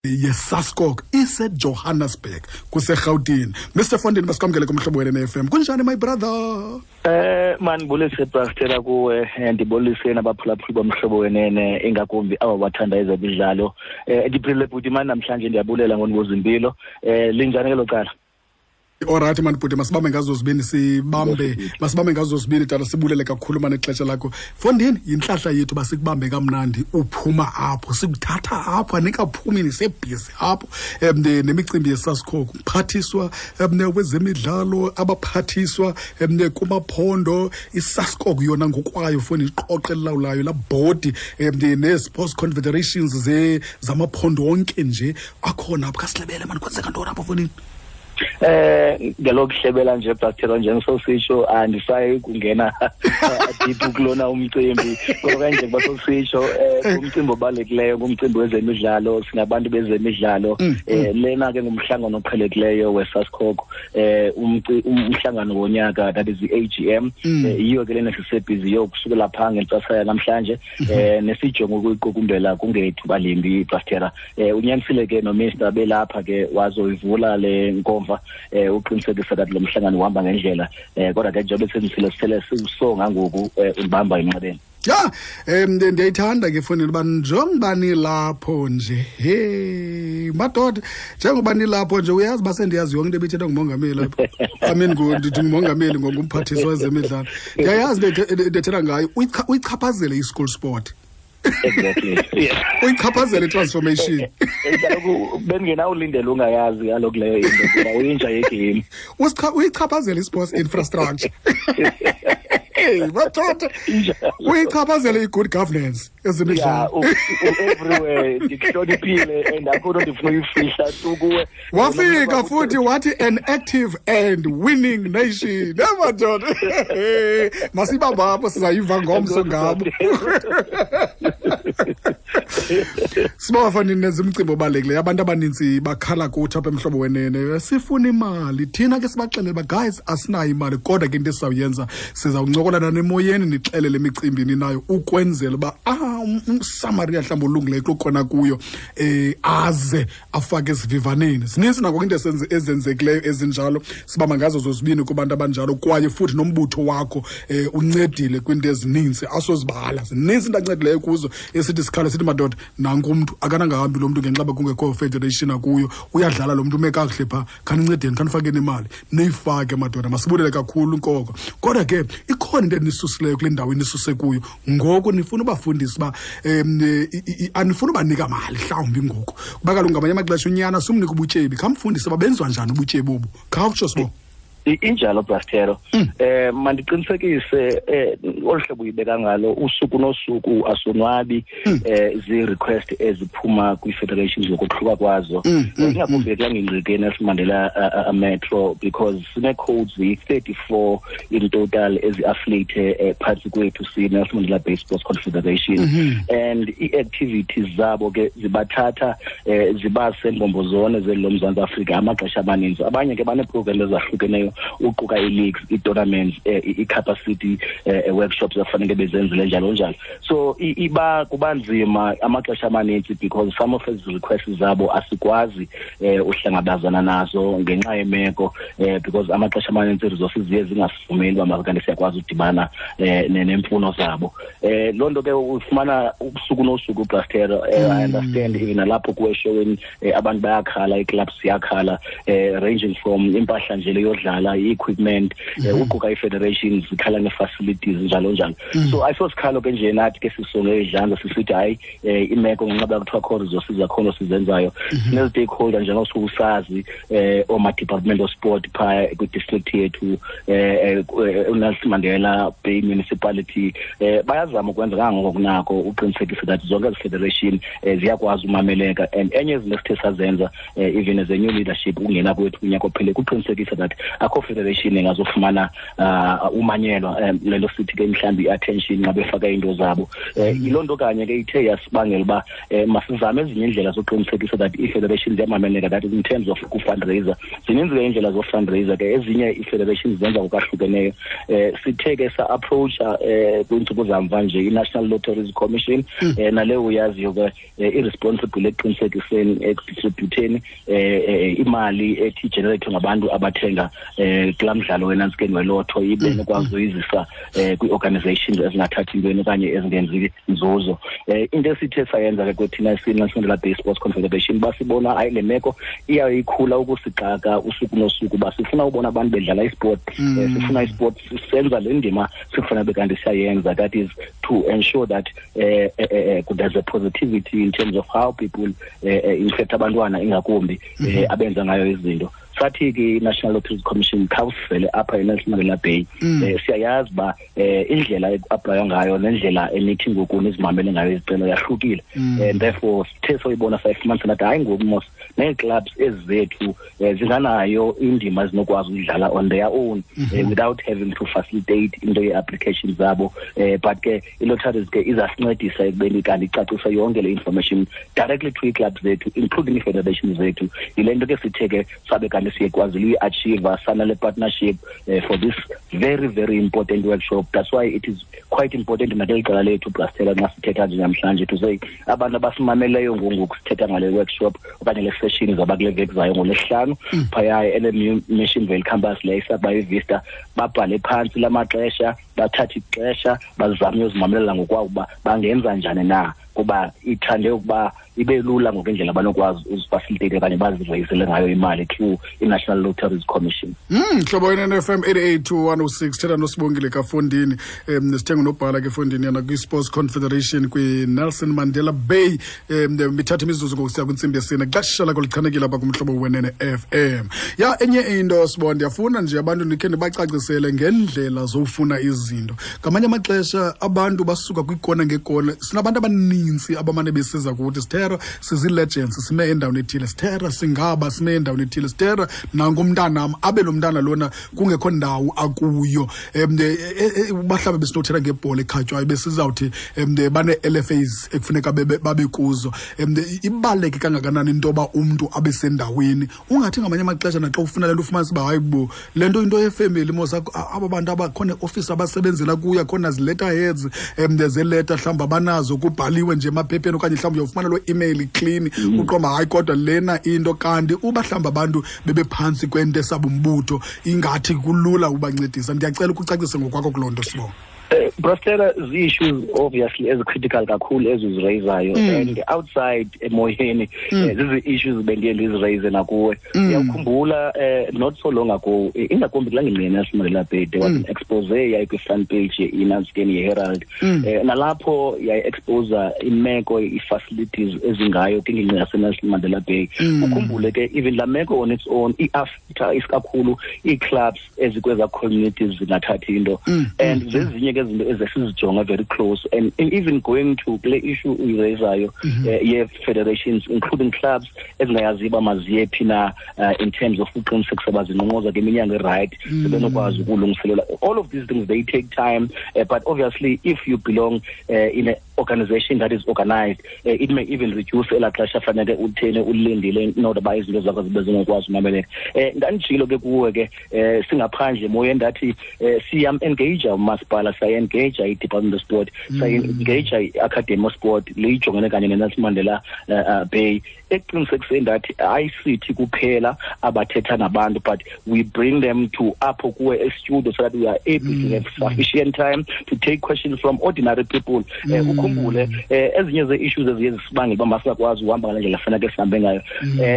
Ye-SASCOC iseJohannesburg, kuseRhawutini. Mr Fondini, masikwamkele kuMhlobo Wenene FM. Kunjani, my brother? Mandibulise, Pastor, kuwe, ndibulise nabaphulaphuli boMhlobo Wenene, ingakumbi aba bathanda ezemidlalo. Ndiphilile, bhuti mani. Namhlanje ndiyabulela ngonibuza impilo. Linjani ke lo cala? Alright mani bhuti, masibambe ngazo zibini, sibambe, masibambe ngazo zibini, tata. Sibulele kakhulu mani ixesha lakho, fondini. Yintlahla yethu uba sikubambe kamnandi uphuma apho, sikuthatha apho anikaphumi, nisebhizi apho nemicimbi yeSASCOC, mphathiswa wezemidlalo, abaphathiswa kumaphondo, iSASCOC yona ngokwayo foni, iqoqo elilawulayo, laa bhodi, nee-sports confederations zamaphondo wonke nje akhona apho. Khasilebele mani, kwenzeka ntoni apho, fondini? Ngelokuhlebela nje, Pastor, njengesositsho, andisayi kungena deep kulona umcimbi, ngoba nje kuba sositsho, umcimbi obalulekileyo ngumcimbi wezemidlalo. Singabantu bezemidlalo. Lena ke ngumhlangano oqhelekileyo weSASCOC, umhlangano wonyaka, that is i-AGM. Yiyo ke lena sisebhizi yokusukela phaa ngentsasa yanamhlanje, nesijongo ukuyiqukumbela kungethuba limbi, Pastor. Unyanisile ke noMr belapha ke wazoyivula le nkomfa, uqinisekisa that lo mhlangano uhamba ngendlela, kodwa ke njengoba senzisile, sele siwusonga ngoku, ulibamba emnxebeni. Ya, ndiyayithanda ke fondini uba njengoba nilapho nje, he madoda, njengoba nilapho nje, uyazi uba sendiyazi yonke into ebithethwa ngumongameli apha. I mean, ndithi ngumongameli, ngumphathiswa wezemidlalo. Ndiyayazi into ethetha ngayo. Uyichaphazele i-school sport. Exactly. Uyichaphazele i-transformation. Kaloku bengenawulindela ungayazi kaloku leyo into, kuba uyinja yegame. Uyichaphazele i-sports infrastructure. Hey, madoda, uyichaphazele i-good governance ezemidlalo. Everywhere ndikuhloniphile and akho nto ndifuna uyifihla tu kuwe. Wafika futhi wathi an active and winning nation. Emadoda, masibambe apho, sizayiva ngomso ngabo. Sibafani, nenza umcimbi obalulekileyo. Abantu abanintsi bakhala kuthi apha eMhlobo Wenene, sifuna imali. Thina ke sibaxelele uba guys, asinayo imali, kodwa ke into esizawuyenza, sizawuncokola nanemoyeni, nixelele imicimbi ninayo ukwenzela uba umsamariya mhlawumbi olungileyo kukhona kuyo aze afake esivivaneni. Zininzi nako into ezenzekileyo ezinjalo, sibamba ngazo zozibini kubantu abanjalo. Kwaye futhi nombutho wakho uncedile kwiinto ezininzi asozibala, zininzi into ancedileyo kuzo. Esithi sikhala sithi madoda, nanku umntu akanangahambi lo mntu ngenxa uba kungekho federation akuyo, uyadlala lo mntu, ume kakuhle phaa, khanincedeni, khanifakeni imali, niyifake madoda. Masibulele kakhulu nkoko. Kodwa ke ikhona into enisusileyo kule ndawo enisuse kuyo ngoku, nifuna ubafundisa uba anifuna ubanika mali mhlawumbi ngoku, kuba kaloku ngamanye amaxesha unyana sumnika ubutyebi, khamfundise uba benziwa njani ubutyebi obu. Khawutsho, Sibo. Injalo, Brastero. Mandiqinisekise, olu hlobo uyibeka ngalo, usuku nosuku asonwabi zi-request eziphuma kwii-federations ngokohluka kwazo, ingakumbi kulaa ngingqi Nelson Mandela Metro, because sinee-codes ziyi-34 in total ezi-affiliate phantsi kwethu si-Nelson Mandela Bay Sports Confederation, and ii-activities zabo ke zibathatha zibase mbombo zone zeli loMzantsi Afrika amaxesha amaninzi. Abanye ke baneeprogram ezahlukeneyo, uquka ii-leagues, ii-tournaments, ii-capacity workshops afanele bezenzile, njalo njalo. So iba kuba nzima amaxesha amaninzi because some of ezi requests zabo asikwazi uhlangabezana nazo ngenxa yemeko, because amaxesha amaninzi ii-resources ziye zingasivumeli uba makanti siyakwazi udibana neemfuno zabo. Loo nto ke ufumana usuku nosuku, Brastero. I understand, even nalapho kuwe eshowini, abantu bayakhala, ii-clubs ziyakhala, ranging from impahla nje leyodlala, i-equipment, uquka ii-federations zikhala nee-facilities, njalo njalo. So ayisosikhalo ke nje nathi ke sisonge idlanza sisithi hayi, imeko ngenxa yoba kuthiwa kho resources zakhona sizenzayo. Sinezi-stakeholder njengosuke usazi, ooma-department of sport phaa kwi-district yethu, uNelson Mandela Bay Municipality, bayazama ukwenza kangangoko kunako uqinisekisa that zonke ezi federation ziyakwazi umameleka. And enye izinto esithe sazenza, even as a new leadership ukungena kwethu kunyaka ophele, kuqinisekisa that akho Akho federation engazofumana umanyelwa, lelo sithi ke mhlawumbi i-attention xa befaka iinto zabo. Yiloo nto kanye ke ithe yasibangela uba masizame ezinye iindlela zokuqinisekisa that ii-federations ziyamameleka, that is in terms of ku-fundraiser. Zininzi ke iindlela zo-fundraiser ke, ezinye ii-federations zenza ngokwahlukeneyo. Sithe ke sa-approacha kwiintsuku zamva nje i-National Lotteries Commission, naleyo uyaziyo ke i-responsible ekuqinisekiseni, ekudistributeni imali ethi igenerate ngabantu abathenga kulaa mdlalo wenantsikeni welotho, ibe nokwazi uyizisa kwii-organizations ezingathathi ntweni okanye ezingenzi nzuzo. Into esithe sayenza ke kwethina siyi-Nelson Mandela Bay Sports Confederation, basibona hayi le meko iyayikhula ukusixaka usuku nosuku, uba sifuna ubona abantu bedlala isport, sifuna isport senza le ndima sikufanele bekanti siyayenza, that is to ensure that there's a positivity in terms of how people, in fact abantwana ingakumbi, abenza ngayo izinto. Sathi ke i-National Lotteries Commission, khawusivele apha eNelson Mandela Bay. Siyayazi uba indlela ekuaplaywa ngayo nendlela enithi ngoku nizimamele ngayo izicelo yahlukile, and therefore sithe soyibona sayifumanisa nathi hayi ngoku mos nee-clubs ezi zethu zinganayo indima ezinokwazi uyidlala on their own without having to facilitate into ye-application zabo, but ke i-lotteries ke izasincedisa ekubeni kanti icacise yonke le information directly to ii-clubs zethu, including ii-federations zethu. Yile nto ke sithe ke sabe kanti siyekwazile uyi-achieve sanale partnership for this very, very important workshop. That's why it is quite important nakeli qela lethu, Brastela, nxa sithetha nje namhlanje, to say abantu abasimameleyo ngoku sithetha ngale workshop okanye le session izawuba kule veki zayo ngoLwesihlanu phaya e-LMU Missionvale campus le isakuba iVista, babhale phantsi la maxesha, bathathe ixesha bazame uyozimamelela ngokwabo uba bangenza njani na, kuba ithande ukuba ibe lula ngokwendlela abanokwazi uzifacilitate okanye bazireyisele ngayo imali through i-National Lotteries Commission. Mhlobo wenene FM 88 to 106, thetha noSibongile Kafondini, sithenga unobhala ke Fondini yana kwi-Sports Confederation kwi-Nelson Mandela Bay. Mithatha imizuzu ngokusiya kwintsimbi yesine, xesha lakho lichanekile apha kumhlobo wenene FM. Ya, enye into Sibonda, ndiyafuna nje abantu ndikhe ndibacacisele ngendlela zofuna izinto. Ngamanye amaxesha abantu basuka kwikona ngekona, sinabantu abaninzi abamane besiza kuthi, "Sithera, sizi-legends, sime endaweni ethile, Sithera, singaba sime endaweni ethile, Sithera, nangumntanam," abe lo mntana lona kungekho ndawo akuyo. Mhlawumbe besinothetha ngebhola ekhatywayo, besizawuthi bane-LFAs ekufuneka babe kuzo. Ibaluleke kangakanani into yoba umntu abe sendaweni? Ungathi ngamanye amaxesha naxa ufuna le nto ufumanise uba hayi bo, le nto into yefemeli mos, aba bantu abakhona eofisi abasebenzela kuyo, akhona zi-letterheads zeleta mhlawumbi abanazo, kubhaliwe nje emaphepheni, okanye mhlawumbi uyawufumana loo email clean, uqomba hayi kodwa lena into. Kanti uba mhlawumbi abantu bebephantsi kwento esabumbutho, ingathi kulula ubancedisa. Ndiyacela ukucacise ngokwakho kuloo nto, Sibonga. Brastera, zii-issues obviously ezicritical kakhulu ezizirayizayo, and outside emoyeni zizi-issues bendiye ndizirayize nakuwe. Uyawukhumbula not so long ago, ingakumbi kulaa ngingqi yeNelson Mandela Bay, there was an expose yayikwi-front page ye-inanskeni ye-Herald, nalapho yayi-exposa imeko ii-facilities ezingayo kwingingqi yaseNelson Mandela Bay. Ukhumbule ke even laa meko on its own i-affecta isikakhulu ii-clubs ezikwezaa communities zingathathi into, and zezinye ke izinto ezesizijonga very close, and even going to kule issue uyirayizayo ye-federations, including clubs ezingayaziyo uba maziye phi na in terms of uqinisekisa uba zinqonqoza kwiminyango erayithi, sebenokwazi ukulungiselela. All of these things, they take time, but obviously if you belong in a organization that is organized, it may even reduce elaa xesha fanele utheni ulindile in order uba izinto zakho zibe zingokwazi umameleka. Ndanditshilo ke kuwe ke singaphandle emoyeni, ndathi siyam-engage umasipala, siyayi-engage i-Department of Sport, siyayi-engage i-Academy of Sport leyijongene kanye neNelson Mandela Bay, ekuqinisekiseni ndathi ayisithi kuphela abathetha nabantu, but we bring them to apho kuwe estudio so that we are able to have sufficient time to take questions from ordinary people. Ukhumbule ezinye ze-issues eziye zisibangela uba masingakwazi uhamba ngale ndlela faneke sihambe ngayo,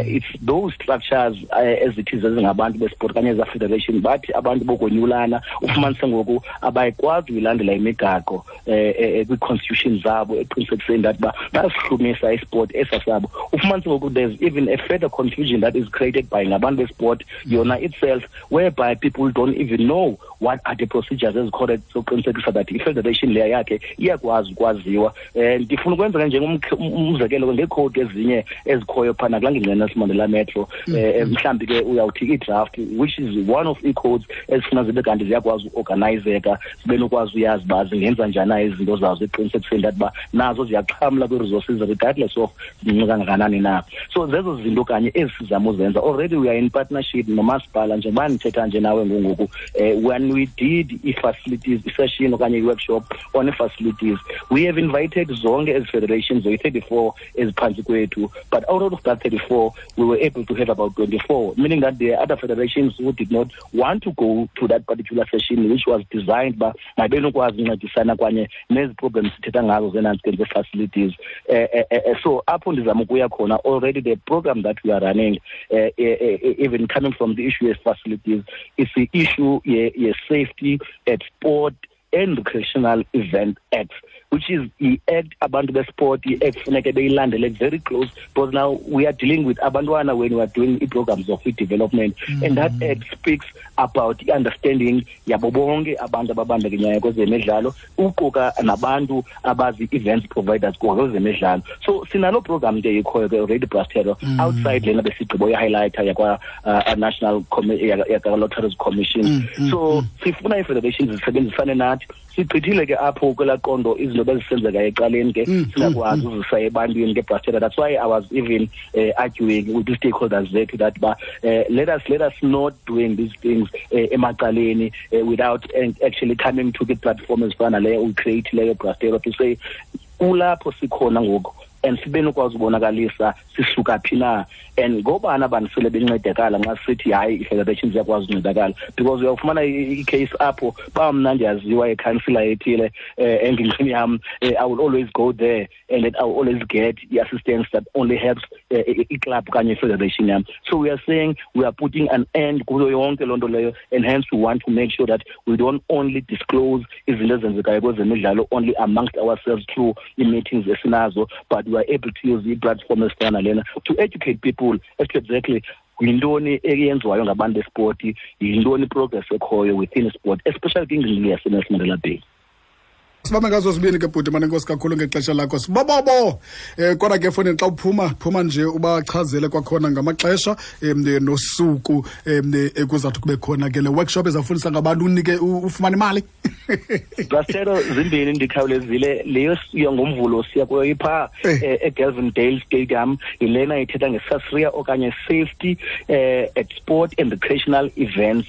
it's those structures ezithi zezingabantu besport kanye eza federation, bathi abantu bokonyulana, ufumanise ngoku abayikwazi uyilandela imigaqo kwii-constitution zabo eqinisekiseni that uba bayasihlumisa isport esa sabo. Ufumanise ngoku there's even a further confusion that is created by ngabantu besport yona itself, whereby people don't even know what are the procedures ezicorrect zokuqinisekisa that i-federation leya yakhe iyakwazi ukwaziwa. ukwenziwa. Ndifuna ukwenza ke njengomzekelo ngeekhowudi ezinye ezikhoyo phana kulaa ngingqi Nelson Mandela Metro. Mhlawumbi ke uyawuthi i-draft, which is one of ii-codes ezifuna zibe kanti ziyakwazi uorganizeka, zibe nokwazi uyazi uba zingenza njani na izinto zazo, eqinisekiseni that uba nazo ziyaxhamla kwii-resources regardless of zincinci kangakanani na. So zezo zinto kanye ezi sizama uzenza. Already we are in partnership nomasipala, njengoba ndithetha nje nawe ngoku. When we did i-facilities i-session okanye i-workshop on i-facilities, we have invited zonke ezi federations zoyi-34 eziphantsi kwethu, but out of that 34 we were able to have about 24, meaning that there are other federations who did not want to go to that particular session, which was designed uba mabenokwazi uncedisana kwanye nezi problems sithetha ngazo zenantsike facilities. So apho ndizama ukuya khona, already the program that we are running, even coming from the issue of facilities, is the issue ye-Safety at Sport and Recreational Event Act, which is i-act abantu besport i-act funeke beyilandele very close, because now we are dealing with abantwana when we are doing i-programs of development, and that act speaks about i-understanding yabo bonke abantu ababandakanyayo kwezemidlalo, uquka nabantu abazi-events providers kwezemidlalo. So sinalo program nje ikhoyo ke already, Brastero, outside lena besigqibo ye-highlighter yakwa National yakwa-Lotteries Commission. So sifuna ii-federations zisebenzisane nathi. Sigqithile ke apho kwelaa qondo izinto bezisenzeka ecaleni ke, singakwazi uzisa ebantwini ke, Brastera. That's why I was even arguing with the stakeholders zethu that ba let us not doing these things emacaleni without actually coming to the platform ezifana naleyo uyi-create leyo, Brastera, to say kulapho sikhona ngoku and sibe nokwazi ubonakalisa sisuka phi na and ngobani abantu sele bencedakala nxa sithi hayi, i-federation ziyakwazi uncedakala, because uyawufumana i-case apho ba mna ndiyaziwa ikhansila ethile engingqini yam, I will always go there and then I will always get i-assistance that only helps i-club okanye i-federation yam. So we are saying we are putting an end kuyo yonke loo nto leyo, and hence we want to make sure that we don't only disclose izinto ezenzekayo kwezemidlalo only amongst ourselves through ii-meetings esinazo, but we are able to use ii-platform ezifana nalena to educate people as to exactly yintoni eyenziwayo ngabantu bespoti, yintoni i-progress ekhoyo within sport, especially kwingingqi yaseNelson Mandela Bay. Sibambe ngazo zibini ke, bhuti. Mane, enkosi kakhulu ngexesha lakho, sibobobo. Kodwa ke efowunini xa uphuma phuma nje ubachazele kwakhona ngamaxesha nosuku ekuzawuthi kube khona ke le workshop ezawufundisa ngabantu unike ufumane imali. Brastero, zimbini, ndikhawulezile. Leyo siya ngoMvulo, siya kuyo ipha eGelvindale Stadium, yilena ithetha ngeSASRIA okanye Safety at Sport and Recreational Events.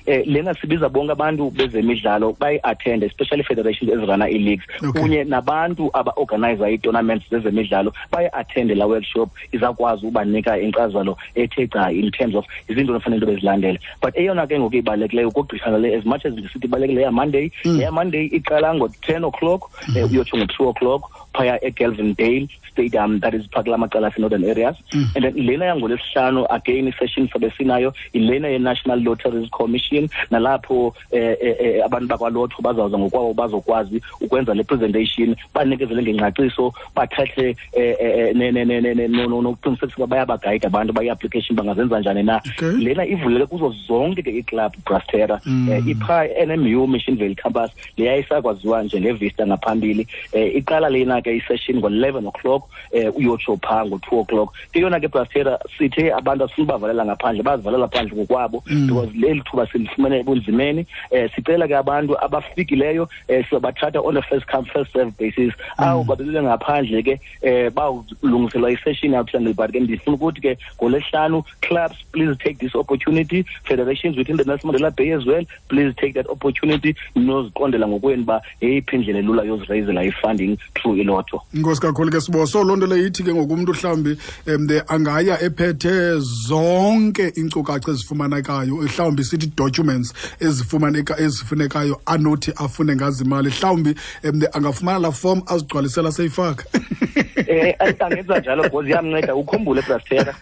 Lena sibiza bonke abantu bezemidlalo bayi-attend, especially federations ezirana ii-leagues kunye nabantu aba-organiza ii-tournaments zezemidlalo, bayi-attende la workshop. Izawukwazi ubanika inkcazelo ethe gca in terms of izinto efanele into bezilandele. But eyona ke ngoku ibalulekileyo ukugqitha le, as much as ndisithi ibalulekile yaMonday, leyaMonday iqala ngo-10 o'clock uyotsho ngo-2 o'clock phaya eGelvindale Stadium, that is phaa kula macala ase-Northern Areas. And then lena yangoLwesihlanu, again isession sabe sinayo, ilena ye-National Lotteries Commission, nalapho abantu bakwalotho bazawuza ngokwabo bazokwazi ukwenza le presentation, banikezele ngengcaciso, bathathe nokuqinisekisa uba bayabagayida abantu bayi-application bangazenza njani na. Lena ivulele kuzo zonke ke iiclub, Brastera. Ipha NMU Missionvale Campus, leya isakwaziwa njengeVista ngaphambili. Iqala lena ke isession ngo-11 o'clock uyotsho phaa ngo-2 o'clock. Ke yona ke, Brastera, sithe abantu asifuni bavalela ngaphandle, bazivalela phandle ngokwabo, because leli thuba silifumene ebunzimeni. Sicela ke abantu abafikileyo sizobathatha on a first come first serve basis. Abo babebele ngaphandle ke bawulungiselwa isession yawuthanda. But ke ndifuna ukuthi ke ngoLwesihlanu, clubs, please take this opportunity. Federations within the Nelson Mandela Bay as well, please take that opportunity noziqondela ngokwenu uba yeyiphi indlela elula yozirayizela i-funding through ilotho. Inkosi kakhulu ke, Sibo. So loo nto leyo ithi ke ngoku umntu mhlawumbi angaya ephethe zonke iinkcukacha ezifumanekayo, mhlawumbi sithi documents ezifumaneka ezifunekayo anothi afune ngazo imali, mhlawumbi angafumana laa form azigcwalisela seyifaka. Angenza njalo because iyamnceda. Ukhumbule, Brastera,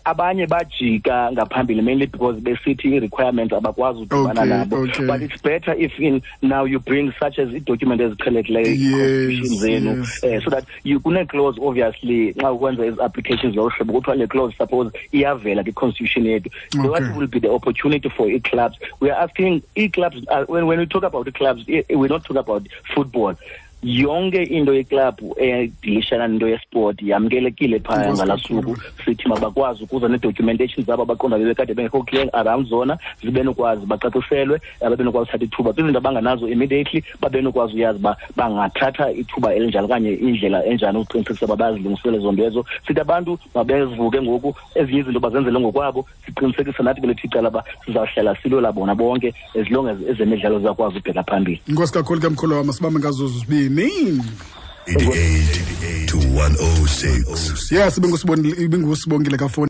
abanye bajika ngaphambili mainly because besithi i-requirements abakwazi udibana nabo. But it's better if in now you bring such as i-document eziqhelekileyo, i-constitution zenu, so that you kune-clause obviously xa ukwenza ezi applications lolu hlobo kuthiwa le clause suppose iyavela kwi-constitution yethu. What will be the opportunity for ii-clubs? We are asking ii-clubs, when we talk about the clubs, we're not talking about football. Yonke into yeklabhu edilishana nento yesport yamkelekile phaya ngalaa suku. Sithi mabakwazi ukuza nee-documentation zabo abaqonda bebekade bengekho clear around zona, zibe nokwazi bacaciselwe, babe nokwazi uthatha ithuba kwizinto abanganazo immediately, babe nokwazi uyazi uba bangathatha ithuba elinjani okanye indlela enjani ukuqinisekisa uba bayazilungisele ezo nto ezo. Sithi abantu mabezivuke ngoku, ezinye izinto bazenzele ngokwabo. Siqinisekisa nathi kwelethu icala uba sizawuhlala silwela bona bonke as long as ezemidlalo zizakwazi ubheka phambili. Inkosi kakhulu ke, mkhulu wam, sibambe ngazo zibini. 88 to 106. Yes, ibingusibongile kafoni.